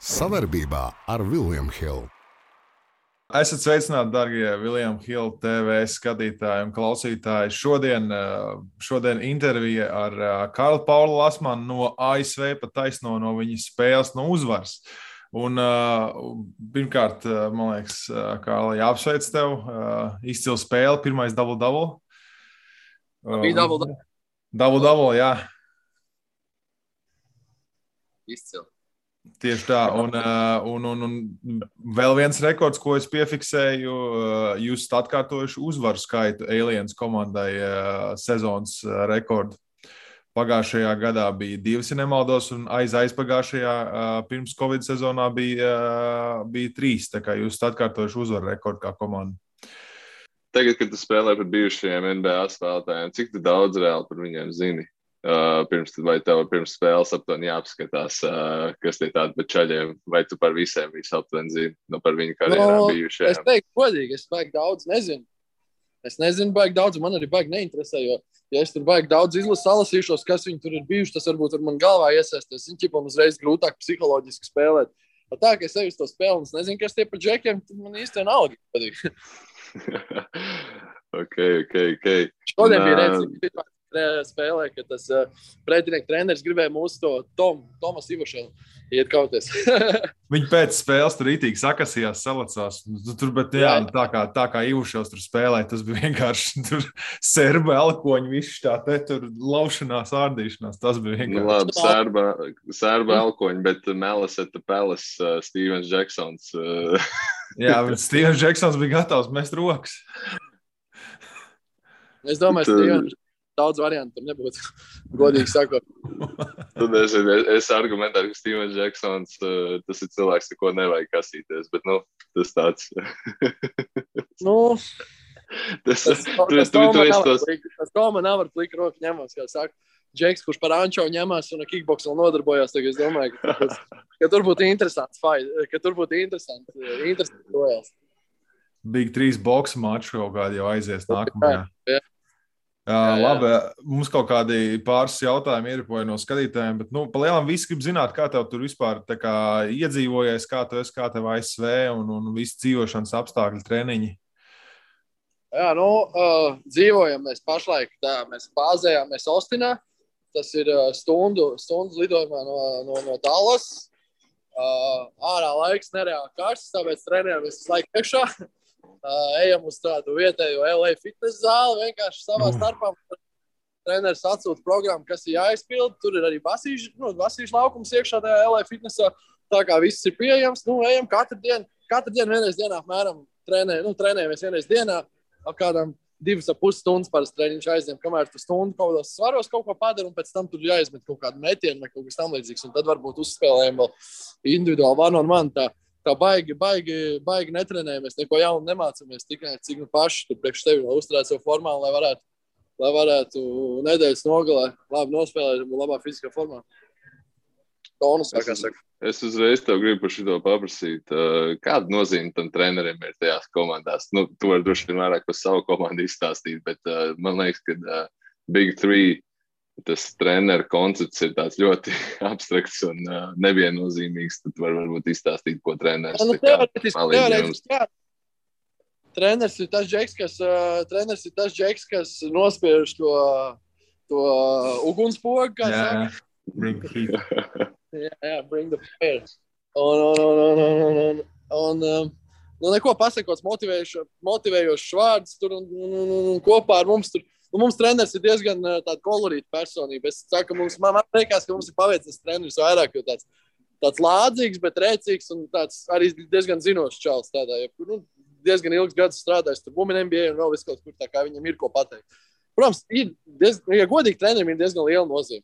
Savarbībā ar William Hill. Esat sveicināti, darbie William Hill TV skatītāji un klausītāji. Šodien intervija ar Karlu Paulu Lasmanu no ASV, pat taisno no viņa spēles, no uzvaras. Un pirmkārt, man liekas, Karla, jāapsveic tev. Izcila spēle, pirmais double-double. Bija double-double. Double-double, jā. Izcila. Tieši tā, un vēl viens rekords, ko es piefiksēju, jūs esat atkārtojuši uzvaru skaitu Aliens komandai sezonas rekordu. Pagājušajā gadā bija 2, ja nemaldos, un aizpagājušajā pirms Covid sezonā bija 3, tā kā jūs esat atkārtojuši uzvaru rekordu kā komanda. Tagad, kad tu spēlē par bijušajiem NBA spēlētājiem, cik tu daudz reāli par viņiem zini? Vai tev pirms spēles aptuveni jāapskatās, kas tie tādi par čaļiem, vai tu par visiem visu aptuveni zini, par viņu karjerām bijušajiem? Es teiktu godīgi, es baigi daudz nezinu. Es nezinu baigi daudz, man arī baigi neinteresē, jo ja es tur baigi daudz salasīšos, kas viņi tur ir bijuši, tas varbūt ar man galvā iesaisties. Viņi ķipam uzreiz grūtāk psiholoģiski spēlēt. Tā, ka es eju uz to spēli un es nezinu, kas tie par džekiem, tad man īsti vienalga patīk. Ok. Šodien bija redzīgi spēlē, ka tas pretinieku treneris gribēja mūsu to Tomas Ivašelu iet kauties. Viņi pēc spēles tur rītīgi sakasījās, salacās. Bet jā, tā kā Ivašels tur spēlēja, tas bija vienkārši tur serba elkoņi, viss tā te tur laušanās, ārdīšanās. Tas bija vienkārši. Labi, serba elkoņi, bet Melis at the Palace, Stevens Jacksons. Jā, bet Stevens Jacksons bija gatavs mest rokas. Es domāju, Stevens daudz variantu tur nebūtu, godīgi sakot. Es argumentēju, ka Stevens Jacksons, tas ir cilvēks, ar ko nevajag kasīties, bet, tas tāds. Tas Toma nav ar pliku roku ņemās, kā saka. Džeks, kurš par Ančo ņemās un ar kickboksu vēl nodarbojās, tagad es domāju, ka tur būtu interesants fight, ka tur būtu interesants projās. Big 3 boksa maču kaut kādi jau aizies nākamajā. Jā. Labi, mums kaut kādi pāris jautājumi ieripoja no skatītājiem, bet, palielam visi grib zināt, kā tev tur vispār tā kā iedzīvojies, kā tev ASV un visi dzīvošanas apstākļi, treniņi. Jā, dzīvojam mēs pašlaik, mēs bāzējāmies Austinā, tas ir stundas lidojumā no Dallas. Ārā laiks nereāli karsts, tāpēc trenējamies visu laiku iekšā. Ejam uz tādu vietējo LA fitness zāli, vienkārši savā starpā. Treneris atsūta programmu, kas ir jāizpild. Tur ir arī basīšu laukums iekšā tajā LA fitnessā. Tā kā viss ir pieejams, ejam katru dienu vienreiz dienā apmēram trenējamies vienreiz dienā. Ap kādām 2,5 stundas parasti treniņš aizņem, kamēr tu stundu kaut kādos svaros kaut ko padara, un pēc tam tur jāizmet kaut kādu metienu vai kaut kas tam līdzīgs. Un tad varbūt uzspēlējam vēl individuāli one on one. Tā baigi netrenējamies, neko jaunu nemācāmies, tikai cik paši tur priekš tevi vēl uzturēt savu formā, lai varētu nedēļas nogalē labi nospēlēt un labā fiziskā formā. Tonus, kā saka. Es uzreiz tev gribu par šito paprasīt. Kāda nozīme tam trenerim ir tajās komandās? Tu vari droši vien vairāk par savu komandu izstāstīt, bet man liekas, ka Big 3 tas treneru koncepts ir tāds ļoti abstrakts un neviennozīmīgs. Tad varbūt izstāstīt, ko treneris teorētiski, jā. Treneris ir tas džeks, kas nospiež to ugunspogu, kā saka. Bring the heat. Jā, bring the fire. Un neko pasakots motivējošs vārds tur un kopā ar mums tur. Mums treneris ir diezgan tāda kolorīta personība. Es saku, man liekas, ka mums ir paveicis treneris vairāk, jo tāds lādzīgs, bet rēcīgs un tāds arī diezgan zinošs čals tādā. Diezgan ilgs gads strādājis tur Women NBA un vēl viss kaut kur, tā kā viņam ir ko pateikt. Protams, ja godīgi trenerim ir diezgan liela nozīme.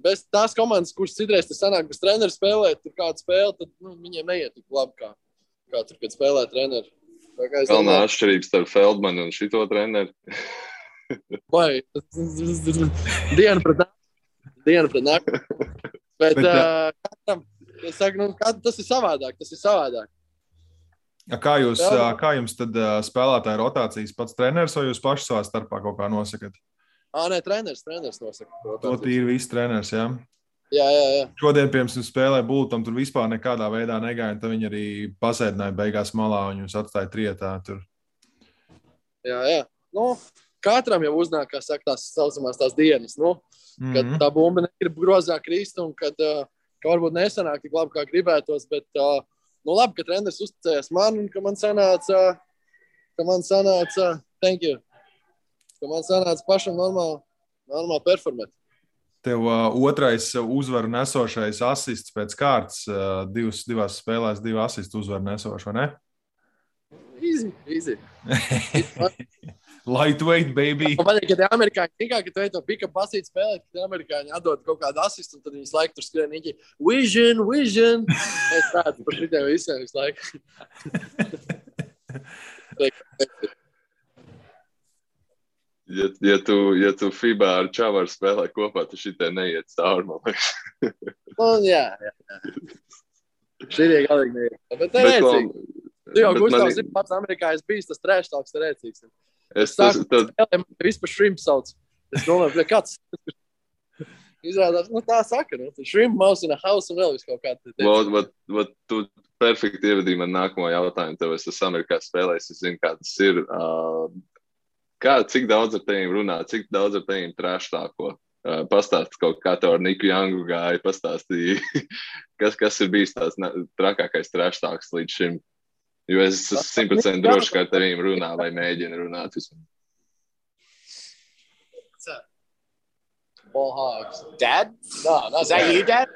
Bez tās komandas, kuras citreiz te sanāk, bez treneru spēlēt, tur kādu spēli, tad viņiem neiet tik labi, kā tur, kad spēlē treneri. Galvenā atšķirības starp Feldmanu un šito treneri. Vai, diena pret nakti. Bet katram, es saku, tas ir savādāk. Kā jums tad spēlētāja rotācijas pats treneris vai jūs paši savā starpā kaut kā nosakat? Nē, treneris nosaka. To tīri viss treneris, jā? Jā. Šodien, piemēram, spēlē Bultam, tur vispār nekādā veidā negāja, un tad viņi arī pasēdināja beigās malā, un viņus atstāja trietā tur. Jā. Nu, katram jau uznāk, kā saka, tās saucamās tās dienas, nu, kad tā bumba negrib grozā krist, un kad varbūt nesanāk tik labi, kā gribētos, bet nu labi, ka treneris uzticējās man, un ka man sanāca, thank you, ka man sanāca pašam normāli performēt. Tev otrais uzvaru nesošais asists pēc kārtas, divās spēlēs, 2 asistu uzvaru nesošu, vai ne? Easy. Lightweight, baby. Man patīk, ka tie amerikāņi tikā, ka tu ej to pick-up basīt spēlēt, ka tie amerikāņi atdod kaut kādu asistu, un tad viņas laiku tur skrien īķi. Vision. Es tādu par šitiem visiem visu laiku. Ja tu FIBA ar Čavaru spēlē kopā, tu šitie neiet cauri, man liekas. Jā. Šitie galīgi neiet. Bet te rēcīgi. Tu jau, Gustavs, ir pats amerikāņs bijis, tas trash talks te rēcīgs. Es spēlēju, vispār shrimp sauc. Es domāju, kāds izrādās, tā saka, shrimp mouse in a house un vēl visu kaut kādu. Tu perfekti ievadīji man nākamo jautājumu, tev es esmu Amerikā spēlējis, es zinu, kā tas ir. Cik daudz ar teviem runā, cik daudz ar teviem trash talko? Pastāst kaut kā tev ar Niku Youngu gāja, pastāstīja, kas ir bijis tās trakākais trash talks līdz šim. Jo es esmu 100% droši, ka ar tevīm runā vai mēģina runāt vismaz. Ball hogs. Dad? No, is that you, Dad?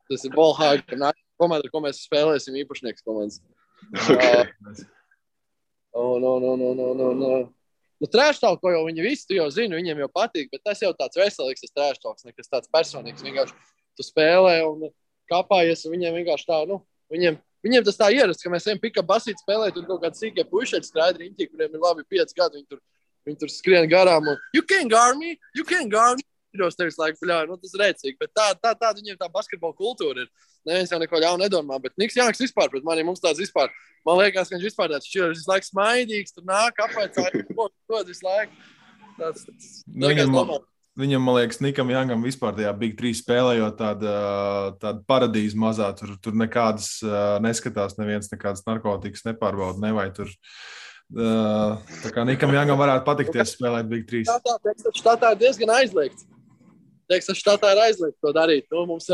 Tas ir ball hog. Komanda, ko mēs spēlēsim, īpašnieks komandas. Okay. No. Nu, trash talk, ko jau viņi visi, tu jau zini, viņiem jau patīk, bet tas jau tāds veselīgs, tas trash talks, nekas tāds personīgs. Vienkārši tu spēlē un kāpājies, un viņiem vienkārši tā, viņiem tas tā ierasts, ka mēs ejam pick-up basīt spēlēt, un kaut kādi sīkie pušeļi strādi riņķi, kuriem ir labi 5 gadi, viņi tur skrien garām, un you can't guard me. Jūs tevis laiku, tas ir rēcīgi, bet tā viņiem tā basketbola kultūra ir. Neviens jau neko ļaunu nedomā, bet Niks Janks vispār pret mani, mums tāds vispār, man liekas, ka viņš vispār tāds šķirs visu laiku smaidīgs, tur nāk apvaicā, dod visu laiku. Viņam, man liekas, Nikam Jangam vispār tajā Big 3 spēlējot tāda paradīze mazā, tur nekādas neskatās, neviens nekādas narkotikas nepārbauda, nevai tur. Tā kā Nikam Jangam varētu patikties spēlēt Big 3. Štatā ir diezgan aizliegts. Štatā ir aizliegts to darīt. Mums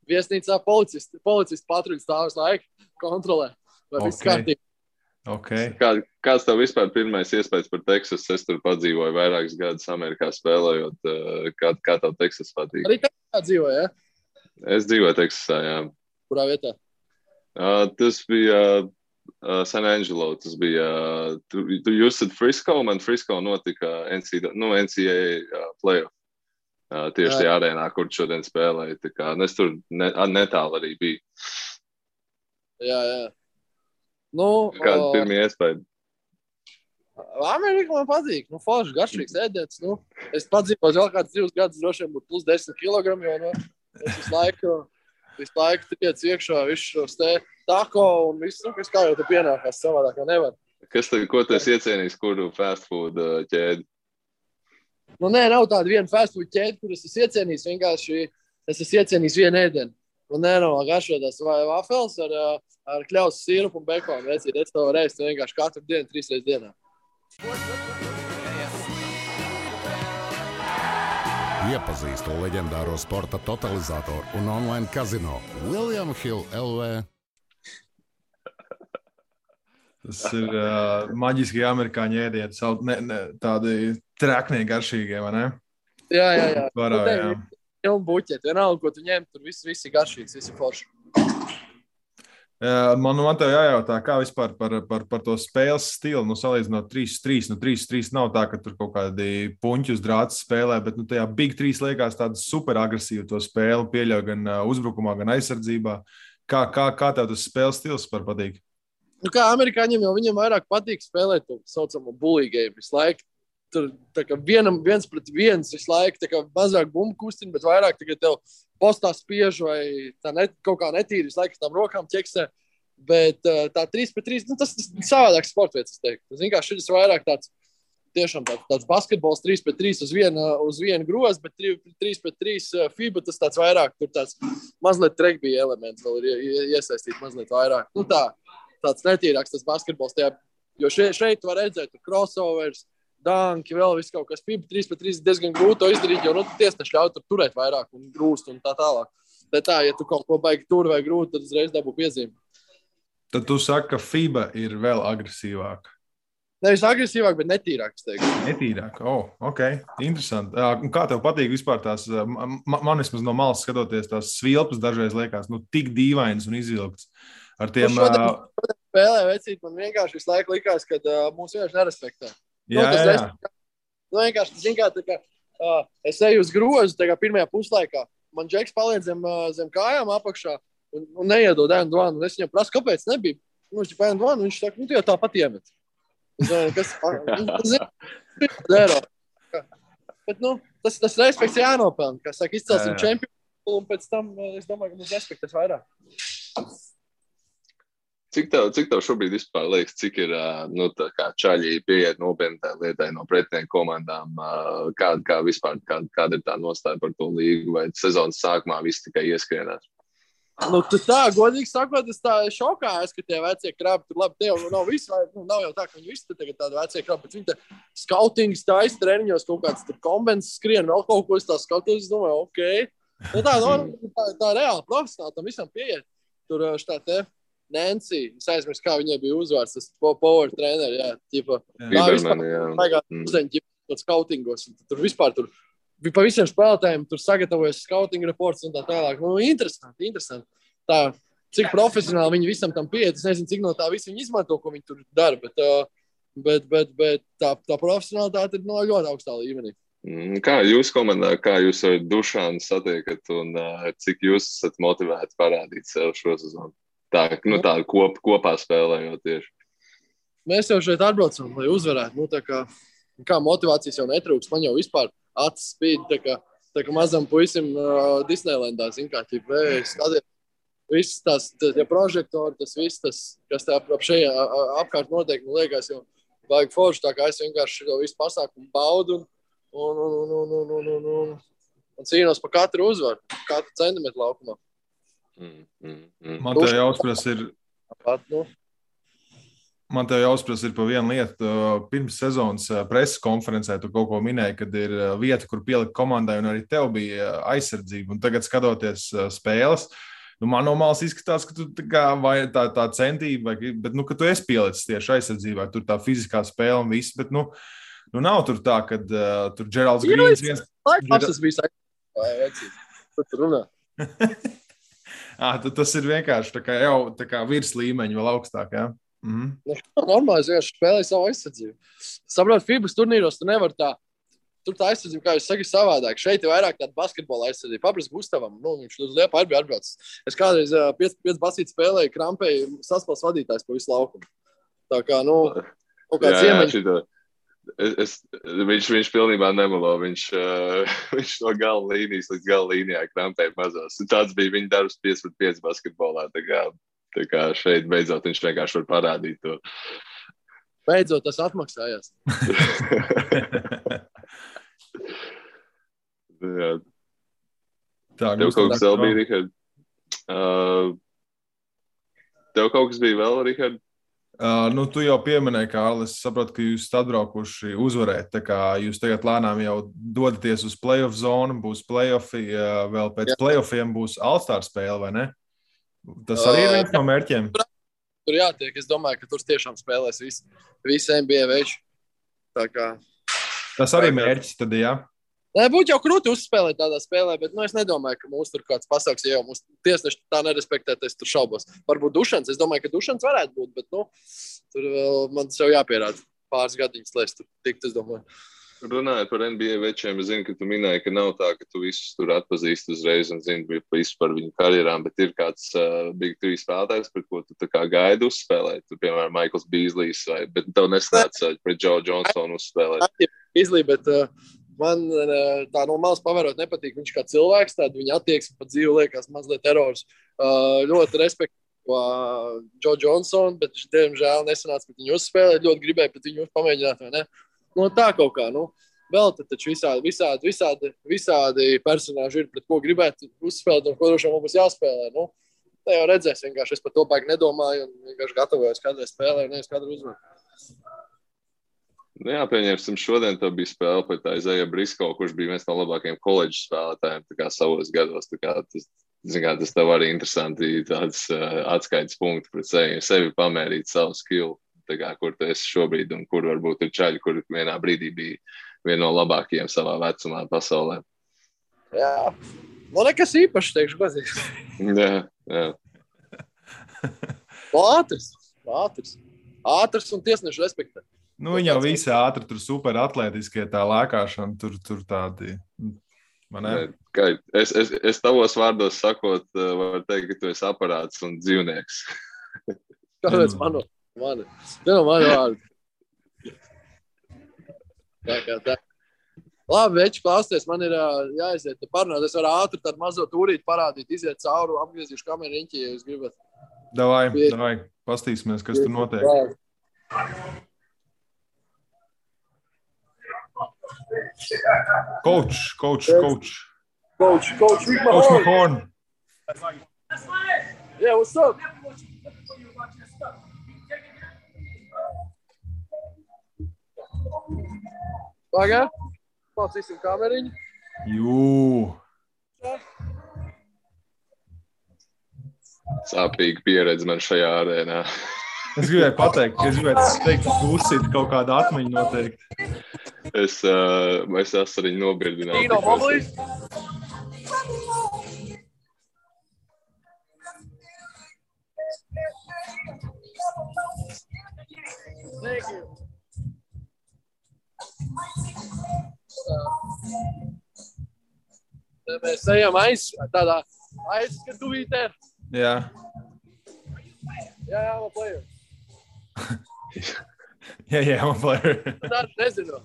viesnīcā policisti patruļi stāv visu laiku kontrolē. Vai viss kārtībā. Okay. Kāds tev vispār pirmais iespējas par Teksasu? Es tur padzīvoju vairākus gadus Amerikā spēlējot. Kā tev Teksas patīk? Arī Teksasā dzīvoja, ja? Es dzīvoju Teksasā, jā. Kurā vietā? Tas bija San Angelo. Tas bija... Jūs esat Frisco? Man Frisco notika NCAA playoff. Tieši tajā arēnā, kur šodien spēlēja. Tā kā es tur netālu arī biju. Jā. Kāda pirmie iespēja? Amerika man patīk. Forši, garšīgs ēdiens. Es padzīvoju vēl kāds 2 gadus, droši vien būtu plus 10 kilogramu, jo es visu laiku tiec iekšā visu šos te tako un visu, kas kā jau te pienākās savādāk, jau nevar. Ko tu esi iecienījis, kuru fast food ķēdi? Nav tāda viena fast food ķēde, kur es esmu iecienījis, vienkārši es esmu iecienījis vienu ēdienu. Garšotās vai vafels ar kļaus sīrupu un bekonu. Es to reizi vienkārši katru dienu, 3 reizes dienā. Iepazīstu leģendāro sporta totalizatoru un online kazino William Hill LV. Tas ir maģiski amerikāņu ēdieni, tādi treknie garšīgie, vai ne? Jā. Varā, jā. Un buķeti, vienalga, ko tu ņem, tur viss ir garšīgs, viss ir forši. Man tev jājautā, kā vispār par to spēles stilu, salīdzinot 3-3. 3-3 nav tā, ka tur kaut kādi puņķi uz drāts spēlē, bet tajā Big 3 liekas tāda super agresīva to spēli, pieļauj gan uzbrukumā, gan aizsardzībā. Kā tev tas spēles stils par patīk? Kā amerikāņiem jau viņiem vairāk patīk spēlēt to saucamo bully game visu laiku. Tur tā kā viens pret viens visu laiku, tā kā mazāk bumbu kustina, bet vairāk tagad tev postā spiež vai tā kaut kā netīri visu laiku tām rokām ķeksē. Bet tā 3 pret 3, tas ir savādāks sportveids, es teiktu. Tas vienkārši šis vairāk tāds tiešām tāds basketbols 3-3 uz vienu grozu, bet 3-3 FIBA tas tāds vairāk, tur tāds mazliet regbija elements vēl ir iesaistīt mazliet vairāk. Nu tāds netīrāks tas basketbols tajā, jo šeit var redzēt crossovers, danki, vēl viss kaut kas. FIBA 3-3 diezgan grūti to izdarīt, jo tiesneši ļauj tur turēt vairāk un grūst un tā tālāk. Bet ja tu kaut ko baigi tur vai grūti, tad uzreiz dabū piezīmi. Tad tu saki, ka FIBA ir vēl agresīvāka. Nevis agresīvāk, bet netīrāk, es teiktu. Netīrāk, ok, interesanti. Kā tev patīk vispār tās, man vismaz no malas skatoties, tās svilpas dažreiz liekas, tik dīvainas un izvilktas. Ar tiem... Spēlē vecīt, man vienkārši visu laiku likās, ka mūs vienkārši nerespektē. Jā. Vienkārši, zin kā, es eju uz grozu, pirmajā puslaikā, man Džeks paliek zem kājām apakšā, un neiedod ēnu dvanu, un es viņam prasu, kāpēc nebija. Viņš ir ēnu dvanu, viņš saka, tu jau tāpat iemet. Kas? Bet, tas respekts jānopelna. Kā saka, izcelsim čempionu, un pēc tam, es domāju, ka mums respektēs vairāk. Cik tev šobrīd vispār liekas, cik ir tā kā čaļi pieiet nopietni tā lietai no pretinieku komandām, kāda ir tā nostāja par to līgu, vai sezonas sākumā viss tikai ieskrienās? Godīgi sakot, es tā šokājos, ka tie vecie krabi tur labi, tie jau nav visi, nav jau tā, ka viņi visi tagad tādi vecie krabi, bet viņi te skautings taisa treniņos, kaut kāds tur kombens skrien, vēl kaut ko es tā skatos, es domāju, ok. Tā reāli profesionāli tam visam pieiet. Tur šitā te Nancy, es aizmirstu, kā viņai bija uzvārds, tas power treneri, jā, ķipa. Bibermani, jā. Uzdeņi skautingos, tur vispār tur. Pa visiem spēlētājiem tur sagatavojas scouting reports un tā tālāk. Interesanti. Tā, cik profesionāli viņi visam tam pieiet, es nezinu, cik no tā visi viņi izmanto, ko viņi tur dara, bet tā profesionālitāte ir ļoti augstā līmenī. Kā jūs komandā, kā jūs ar Dušanu satiekat un cik jūs esat motivēti parādīt sev šo sezonu? Tā kopā spēlējot tieši. Mēs jau šeit atbraucam, lai uzvarētu. Kā motivācijas jau netrūks, man jau vispār acis spīd, tā kā mazam puisim Disneylandā, zin kā, skatiet, viss tās prožektori, tas viss, kas tā apkārt notiek, man liekas, jau vajag forši, tā kā es vienkārši to visu pasākumu baudu un cīnos par katru uzvaru, katru centimetru laukumā. Man tev jāuzpras ir pa vienu lietu. Pirms sezonas preses konferencē tu kaut ko minēji, kad ir vieta, kur pielikt komandai, un arī tev bija aizsardzība. Un tagad skatoties spēles, man no malas izskatās, ka tu tā centība, bet ka tu esi pielicis tieši aizsardzībā, tur tā fiziskā spēle un viss, bet nav tur tā, kad tur Geralds Grīns viens... Tas bija saistības. Tur runā. Tas ir vienkārši tā kā virs līmeņa vēl augstāk, jā? Normāli, es vienkārši spēlēju savu aizsardzību. Saprot, FIBAs turnīros tu nevar tā, tur tā aizsardzība, kā jūs saki, savādāk. Šeit ir vairāk tāda basketbola aizsardzība. Papras Gustavam, viņš uz Liepa arī bija atbraucis. Es kādreiz 5 basīti spēlēju, krampēju saspēles vadītājs pa visu laukumu. Tā kā, kaut kāds iemaņš. Viņš pilnībā nemelo. Viņš no gala līnijas līdz gala līnijā krampēja mazos. Tāds bija viņa darbs 5-5 basketbolā. Tā kā šeit beidzot viņš vienkārši var parādīt to. Beidzot tas atmaksājās. Jā. Tev kaut kas vēl bija, Rihard? Tev kaut kas bija vēl, Rihard? Tu jau pieminēji, Kārli, es saprotu, ka jūs atbraukuši uzvarēt, tā kā jūs tagad lēnām jau dodaties uz playoff zonu, būs playoffi, vēl pēc playoffiem būs All-Star spēle, vai ne? Tas arī ir viens no mērķiem? Tur jātiek, es domāju, ka tur tiešām spēlēs visi NBA veči. Tā kā... Tas arī mērķis tad, jā? Būtu jau krūti uzspēlēt tādā spēlē, bet es nedomāju, ka mūs tur kāds pasauks, ja jau mūs tiesneši tā nerespektēt, es tur šaubos. Varbūt Dušans, es domāju, ka Dušans varētu būt, bet tur vēl man tas jau jāpierāda pāris gadiņas, lai es tur tiktu, es domāju. Runājot par NBA večiem, es zinu, ka tu minēji, ka nav tā, ka tu visus tur atpazīsti uzreiz un zini visu par viņu karjerām, bet ir kāds Big 3 spēlētājs, pret ko tu tā kā gaidi uzspēlēt. Tu, piemēram, Michaels Beasleys, bet tev nesnāca pret Joe Johnsonu uzspēlēt. Beasley, bet man tā no malas pavērot nepatīk. Viņš kā cilvēks, tāda viņa attieksme pat dzīve liekas mazliet terors. Ļoti respektu Joe Johnsonu, bet viņš, diemžēl, nesanāca pret viņu uzspēlēt. Ļoti gribēja pret viņu pamēģināt, vai ne? no tā kaut kā, vēl taču visādi personāži ir, pret ko gribētu uzspēlēt, un ko droši mums jāspēlē, Tā jau redzēs, vienkārši es par to baigi nedomāju, un vienkārši gatavojos kādrai spēlē, un nevis kādru uzvaru. Pieņemsim, šodien tev bija spēle pret Isaiah Briscoe, kurš bija viens no labākajiem koledžas spēlētājiem tā kā savos gados. Tā kā tas tev arī interesanti tāds atskaites punkti pret sevi pamērīt savu skillu, tā kā, kur tu esi šobrīd un kur varbūt ir čaļi, kur vienā brīdī bija viena no labākajiem savā vecumā pasaulē. Jā, nekas īpašs, teikšu, pazīst. Jā. Ātrs un tiesnešu respektē. Viņi jau visi ātri, tur super atletiskie, tā lēkāšana, tur tādi. Es tavos vārdos sakot, varu teikt, ka tu esi aparāts un dzīvnieks. Kāpēc mani? Tā nav mani vārdi. Tā. Labi, veči, klausties, man ir jāiziet parunāt. Es varu ātri tādu mazo tūrīti parādīt, iziet cauri, apgriezīšu kameru riņķi, ja jūs gribat. Davai, pastīsimies, kas tur notiek. Coach Mahorn. Yeah, what's up? Pagā? Mācīsim kameriņu. Jū. Sāpīga pieredze man šajā arēnā. Es gribēju pateikt, ka būsit kaut kāda atmiņa noteikti. Es esmu arī nobirdināts. Dino Moblīs? Thank you. Mēs ejam tādā aizskatuvītē. Jā. Jā, I'm a player. Jā, I'm a player. Nezinu.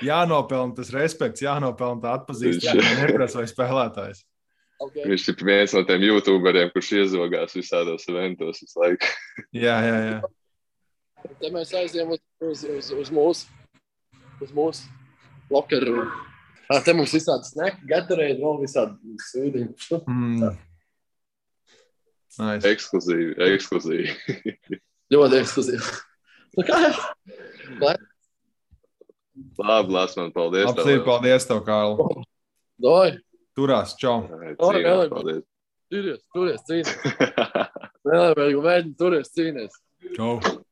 Jānopelna tas respekts, jānopelna tā atpazīstība, neprasa vai spēlētājs. Okay. Viņš ir viens no tiem YouTuberiem, kurš iezogās visādos eventos visu laiku. Jā. Te mēs aizjām uz mūsu lokeru. Te mums visādi sneki, Gatorade, vēl visādi sūdiņi. Nice. Ekskluzīvi. Ļoti ekskluzīvi. Labi, Lasman, paldies. Paldies tev, Kārl. Doj. Turās, čau. Paldies. Turies, cīnies. Vēl, mēģini, turies, cīnies. Čau.